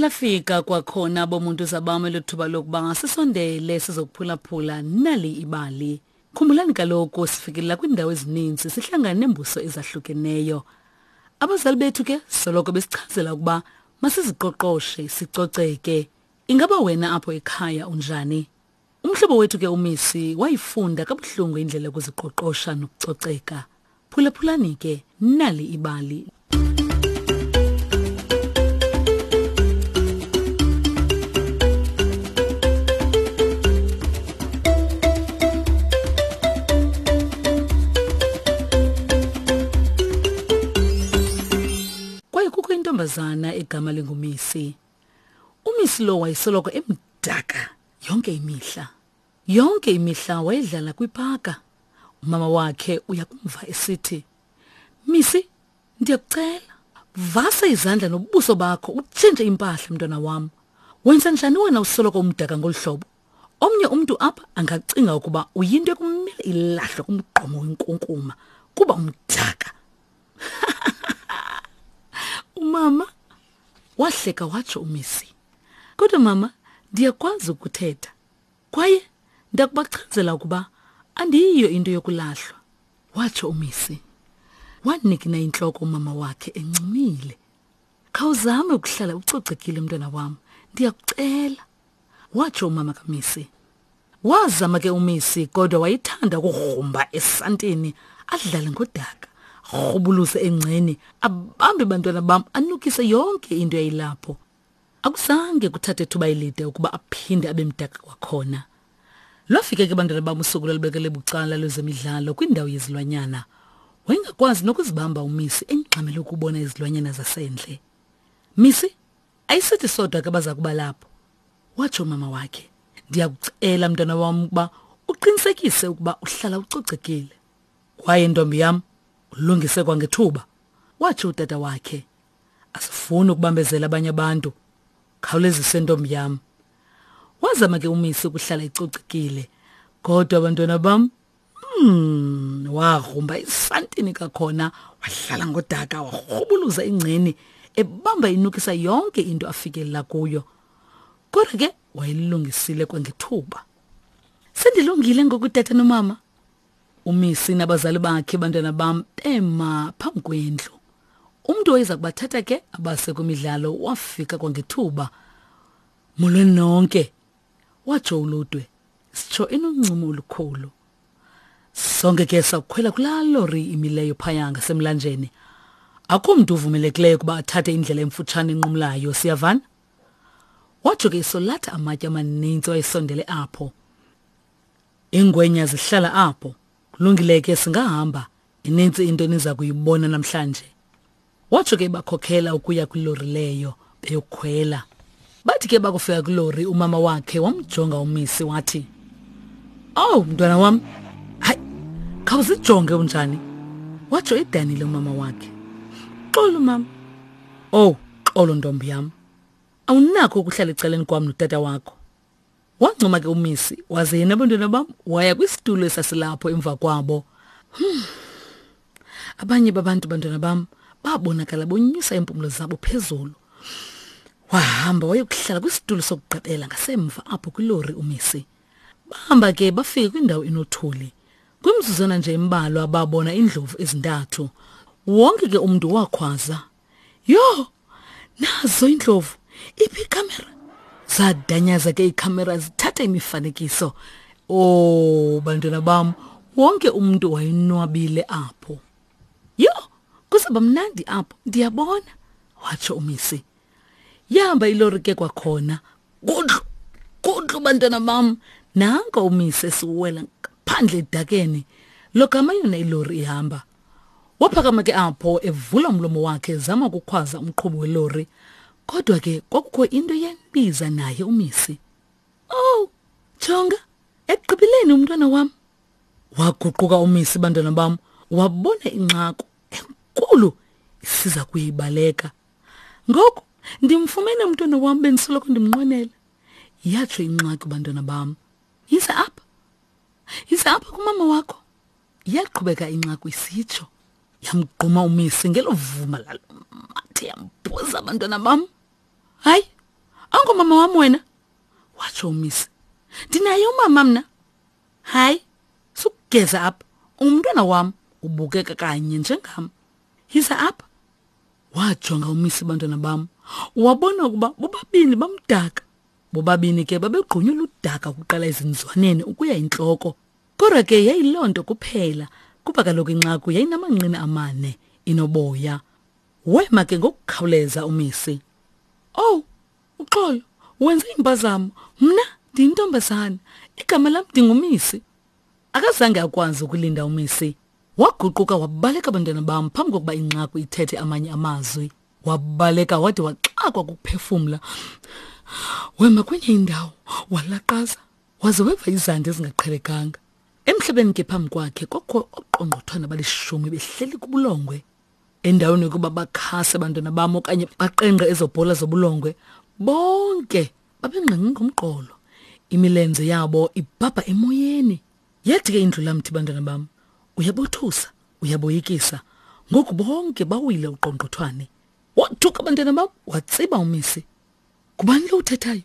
Lafika kwakhona bomuntu zabam elo thuba lokuba sisondele sizokuphulaphula nali ibali. Khumbulani kaloku sifikelela kwiindawo ezininzi sihlangane neembuso ezahlukeneyo. Abazali bethu ke soloko besichazela ukuba masiziqoqoshe sicoceke. Ingaba wena apho ekhaya unjani? Umhlobo wethu ke uMisi wayifunda kabuhlungu indlela yokuziqoqosha nokucoceka. Phulaphulani ke nali ibali. Kwaye kukho intombazana egama linguMisi. UMisi lo wayesoloko emdaka yonke imihla. Yonke imihla wayedlala kwipaka. Umama wakhe uyakumva esithi, Misi, ndiyakucela, vasa izandla nobuso bakho utshintshe impahla mntwana wam. Wenza njani wena usoloko umdaka ngolu hlobo? Omnye umntu apha angacinga ukuba uyinto ekumele ilahlwe kumgqomo wenkunkuma kuba umdaka. Umama wahleka watsho uMisi. Kodwa mama, ndiyakwazi ukuthetha. Kwaye ndakubachazela ukuba andiyiyo into yokulahlwa, watsho uMisi. Wanikina intloko umama wakhe encumile. Khawuzame ukuhlala ucocekile mntwana wam, ndiyakucela, watsho umama kaMisi. Wazama ke uMisi kodwa wayethanda ukugrumba esantini adlale ngodaka, rhubuluze engceni, abambe bantwana bam anukise yonke into eyayilapho. Akuzange kuthathe thuba elide ukuba aphinde abe mdaka kwakhona. Lwafika ke bantwana bam usuku lwalubekele bucala lwezemidlalo kwindawo yezilwanyana. Wayengakwazi nokuzibamba uMisi engxamele ukubona izilwanyana zasendle. Misi, ayisithi sodwa ke baza kuba lapho, watsho umama wakhe. Ndiyakucela mntwana wam ukuba uqinisekise ukuba uhlala ucocekile. Kwaye ntombi yam, ulungise kwangethuba, watsho utata wakhe. Asifuni ukubambezela abanye abantu. Khawulezise ntombi yam. Wazama ke uMisi ukuhlala ecocekile. Kodwa abantwana bam, wagrumba isantini kakhona, wahlala ngodaka, warhubuluza ingceni, ebamba inukisa yonke into afikelela kuyo. Kodwa ke wayelungisile kwangethuba. Sendilungile ngoku tata nomama. UMisi nabazali bakhe bantwana bam bema phambi kwendlu. Umntu oyeza kubathatha ke abase kwimidlalo wafika kwangethuba. Molweni nonke, watsho uLudwe, sitsho enoncumo olukhulu. Sonke ke sakukhwela kulaa lori imileyo phaya ngasemlanjeni. Akho mntu uvumelekileyo ukuba athathe indlela emfutshane enqumlayo, siyavana? Watsho ke isolatha amatye amaninzi wayesondele apho. Iingwenya zihlala apho. Kulungile ke singahamba. Ininzi into eniza kuyibona namhlanje. Watsho ke bakhokhela ukuya kwilori leyo beyokhwela. Bathi ke bakufika kwilori umama wakhe wamjonga umisi wathi, "Oh mntwana wam, hayi khawuzijonge unjani?" Watsho edanile umama wakhe. Xolo mama. Oh, xolo ntombi yam. Awunakho ukuhlala ecaleni kwam notata wakho. Wancuma ke umisi waze yena abantwana bam waya kwisitulo esasilapho emva kwabo. Hmm. Abanye babantu bantwana bam babonakala bonyusa iimpumlo zabo phezulu. Wahamba wayokuhlala kwisitulo sokugqibela ngasemva apho kwilori umisi. Bahamba ke bafike kwindawo enothuli. Kwimizuzwana nje embalwa babona iindlovu ezintathu. Wonke ke umntu wakhwaza. Yho! Nazo iindlovu. Iphi ikhamera? Zadanyaza ke iikhamera zithatha imifanekiso. Oh, bantwana bam, wonke umntu wayonwabile apho. Yho, kuzaba mnandi apho, ndiyabona, watsho umisi. Yahamba ilori ke kwakhona. Gudlu, gudlu bantwana bam. Nanko umise esiwela ngaphandle edakeni. Logama yona ilori ihamba. Waphakama ke apho evula umlomo wakhe ezama ukukhwaza umqhubi welori. Kodwa ke kwakukho into eyayimbiza naye umisi. Oh, jonga, ekugqibeleni umntwana wam. Waguquka umisi bantwana bam, wabona inxaku enkulu isiza kuyibaleka. Ngoku ndimfumene umntwana wam bendisoloko ndimnqwenela. Yatsho ingxaki bantwana bam. Yiza apha. Yiza apha kumama wakho. Yaqhubeka inxaku isitsho. Yamgquma umisi ngelo vuma lalo mathe yambhuza abantwana bam. Hayi, Awungomama wam wena, watsho uMisi. Ndinaye umama mna. Hayi, sukugeza apha. Ungumntwana wam, ubukeka kanye njengam. Yiza apha. Wajonga uMisi bantwana bam, wabona ukuba bobabini bamdaka. Bobabini ke babegqunywe ludaka ukuqala ezinzwaneni ukuya intloko. Kodwa ke yayiloo nto kuphela, kuba kaloku inxaku yayinamanqina amane, inoboya. Wema ke ngokukhawuleza uMisi. Owu, uxolo, wenze impazamo. Mna ndiyintombazana. Igama lam ndinguMisi. Akazange akwazi ukulinda uMisi. Waguquka wabaleka bantwana bam phambi kokuba inxaku ithethe amanye amazwi. Wabaleka wade waxakwa kukuphefumla. Wema kwenye indawo walaqaza waze weva izandi ezingaqhelekanga. Emhlabeni ke phambi kwakhe kwakho oqongqothwana balishumi behleli kubulongwe. Endaweni yokuba bakhase abantwana bam okanye baqengqe ezo bhola zobulongwe, bonke babengqengqe ngomqolo. Imilenze yabo ibhabha emoyeni. Yathi ke indlulamthi bantwana bam, uyabothusa, uyaboyikisa. Ngoku bonke bawile uqongqothwane. Wothuka bantwana bam, watsiba umisi. Ngubani lo uthethayo?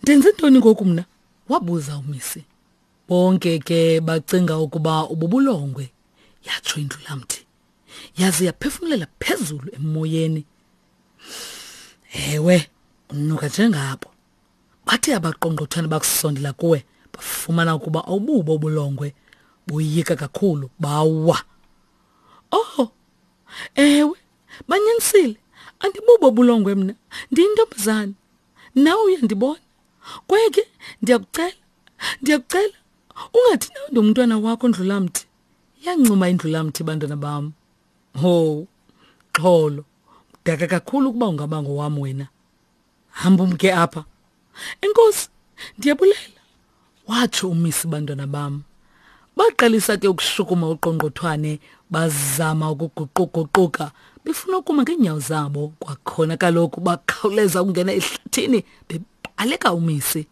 Ndenze ntoni ngoku mna? Wabuza umisi. Bonke ke bacinga ukuba ububulongwe, yatsho indlulamthi. Yaze yaphefumulela phezulu emoyeni. Ewe, unuka njengabo. Bathe abaqongqothwane bakusondela kuwe, bafumana ukuba awububo ubulongwe. Boyika kakhulu, bawa. Oh, ewe, banyanisile. Andibubo ubulongwe mna, ndiyintombazana. Nawe uyandibona. Kwaye ke ndiyakucela, ndiyakucela, ungathi nawe ndingumntwana wakho Ndlulamthi. Yancuma indlulamthi bantwana bam. Ho, xholo, mdaka kakhulu ukuba ungaba ngowam wena. Hamba umke apha. Enkosi, ndiyabulela, watsho umisi bantwana bam. Baqalisa ke ukushukuma uqongqothwane, bazama ukuguquguquka befuna ukuma ngeenyawo zabo. Kwakhona kaloku bakhawuleza ukungena ehlathini bebaleka umisi.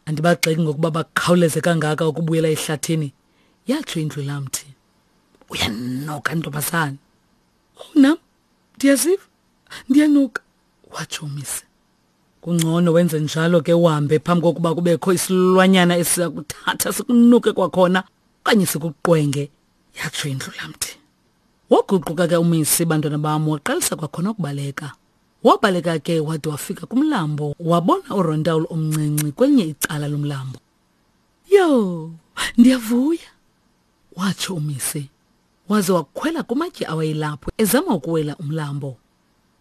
Andibagxeki ngokuba bakhawuleze kangaka ukubuyela ehlathini, yatsho indlulamthi. Uyanoka ntombazana. Oh nam ndiyaziva ndiyanuka, watsho umisi. Kungcono wenze njalo ke uhambe phambi kokuba kubekho isilwanyana esiza kuthatha sikunuke kwakhona okanye sikuqwenge, yatsho indlulamthi. Waguquka ke umisi bantwana bam waqalisa kwakhona ukubaleka. Wabaleka ke wade wafika kumlambo wabona uRontawul omncinci kwelinye icala lomlambo. Yho, ndiyavuya, watsho umisi. Waze wakhwela kumatye awayelapho ezama ukuwela umlambo.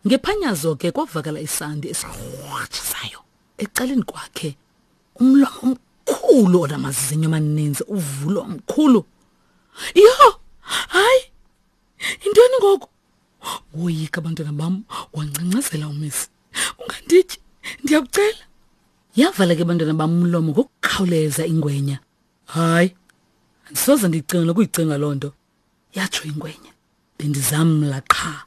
Ngephanyazo ke kwavakala isandi esirhwatshisayo ecaleni kwakhe. Umlomo omkhulu onamazinyo amaninzi uvulwa omkhulu. Yho, hayi, yintoni ngoku? Woyika abantwana bam, wangcangcazela umisi. Ungandityi, ndiyakucela. Yavala ke bantwana bam umlomo ngokukhawuleza ingwenya. Hayi, andisoze ndiyicinga nokuyicinga loo nto, yatsho ingwenya. Bendizamla qha.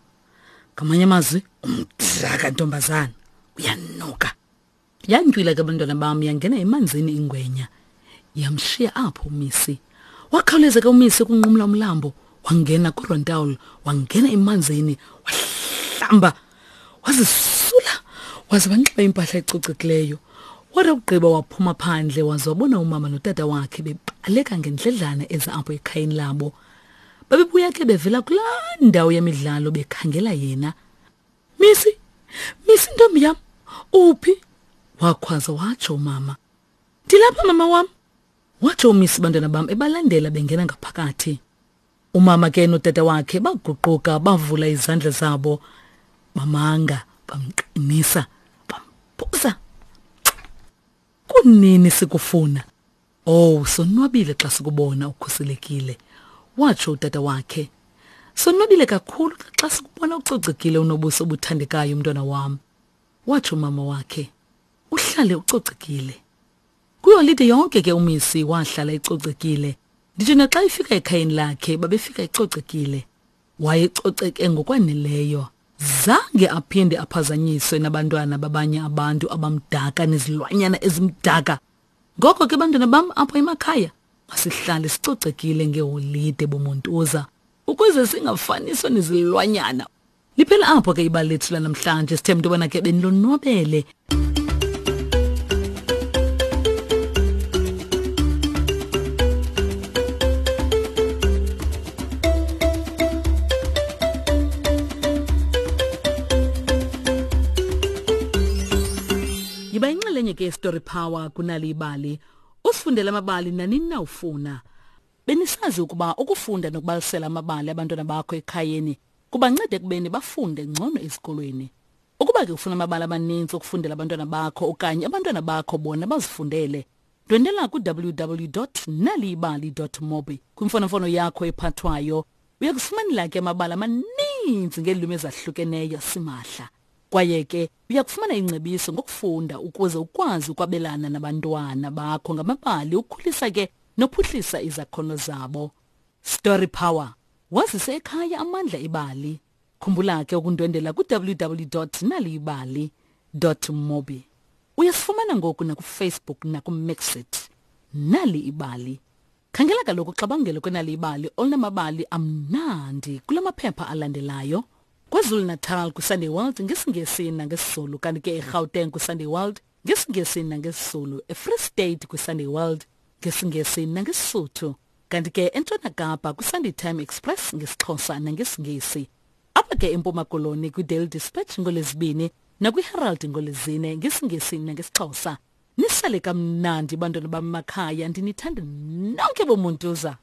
Ngamanye amazwi, umdaka ntombazana, uyanuka. Yantywila ke abantwana bam yangena emanzini ingwenya. Yamshiya apho umisi. Wakhawuleza ke umisi ukunqumla umlambo, wangena kuRontawul, wangena emanzini, wahlamba, wazisula, waze wanxiba impahla ecocekileyo. Wathi akugqiba waphuma phandle waze wabona umama notata wakhe bebaleka ngendledlana eza apho ekhayeni labo. Babebuya ke bevela kulaa ndawo yemidlalo bekhangela yena. Misi, Misi ntombi yam, uphi? Wakhwaza watsho umama. Ndilapha mama wam, watsho uMisi bantwana bam ebalandela bengena ngaphakathi. Umama ke notata wakhe baguquka bavula izandla zabo bamanga bamqinisa bamphosa. Kunini sikufuna? Oh, sonwabile xa sikubona ukhuselekile, watsho utata wakhe. Sonwabile kakhulu xa sikubona ucocekile unobuso obuthandekayo mntwana wam, watsho umama wakhe. Uhlale ucocekile. Kwiholide yonke ke uMisi wahlala ecocekile. Nditsho naxa ifika ekhayeni lakhe babefika ecocekile. Wayecoceke ngokwaneleyo. Zange aphinde aphazanyiswe nabantwana babanye abantu abamdaka nezilwanyana ezimdaka. Ngoko ke bantwana bam apho emakhaya masihlale sicocekile ngeholide bomontuza ukuze singafaniswa nezilwanyana. Liphela apho ke ibali lethu lanamhlanje. Sithemba into yobana ke benilonwabele. Uyinxalenye ke Story Power kunali ibali. Usifundela amabali nanini na ufuna. Benisazi ukuba ukufunda nokubalisela amabali abantwana bakho ekhayeni kubanceda ekubeni bafunde ngcono ezikolweni. Ukuba ke ufuna amabali amaninzi okufundela abantwana bakho okanye abantwana bakho bona bazifundele, ndwendela ku-www.naliyibali.mobi kwimfonomfono yakho ephathwayo. Uya kufumanela ke amabali amaninzi ngeelwimi ezahlukeneyo simahla. Kwaye ke uya kufumana ingcebiso ngokufunda ukuze ukwazi ukwabelana nabantwana bakho ngamabali ukhulisa ke nophuhlisa izakhono zabo. Story Power. Wazise ekhaya amandla ebali. Khumbula ke ukundwendela ku-www.naliyibali.mobi. Uyasifumana ngoku nakuFacebook nakuMixit. Nali ibali. Khangela kaloku uxabangelo kwenali ibali olunamabali amnandi kula maphepha alandelayo. KwaZulu-Natal kwiSunday World ngesiNgesi nangesiZulu kanti ke eGauteng kwiSunday World ngesiNgesi nangesiZulu, eFree State kwiSunday World ngesiNgesi nangeSisuthu kanti ke eNtshona Kapa kwiSunday Time Express ngesiXhosa nangesiNgesi. Apha ke eMpuma Koloni kwiDaily Dispatch ngoLwezibini nakwiHerald ngoLwezine ngesiNgesi nangesiXhosa. Nisale kamnandi bantwana bam makhaya ndinithanda nonke bomuntuza.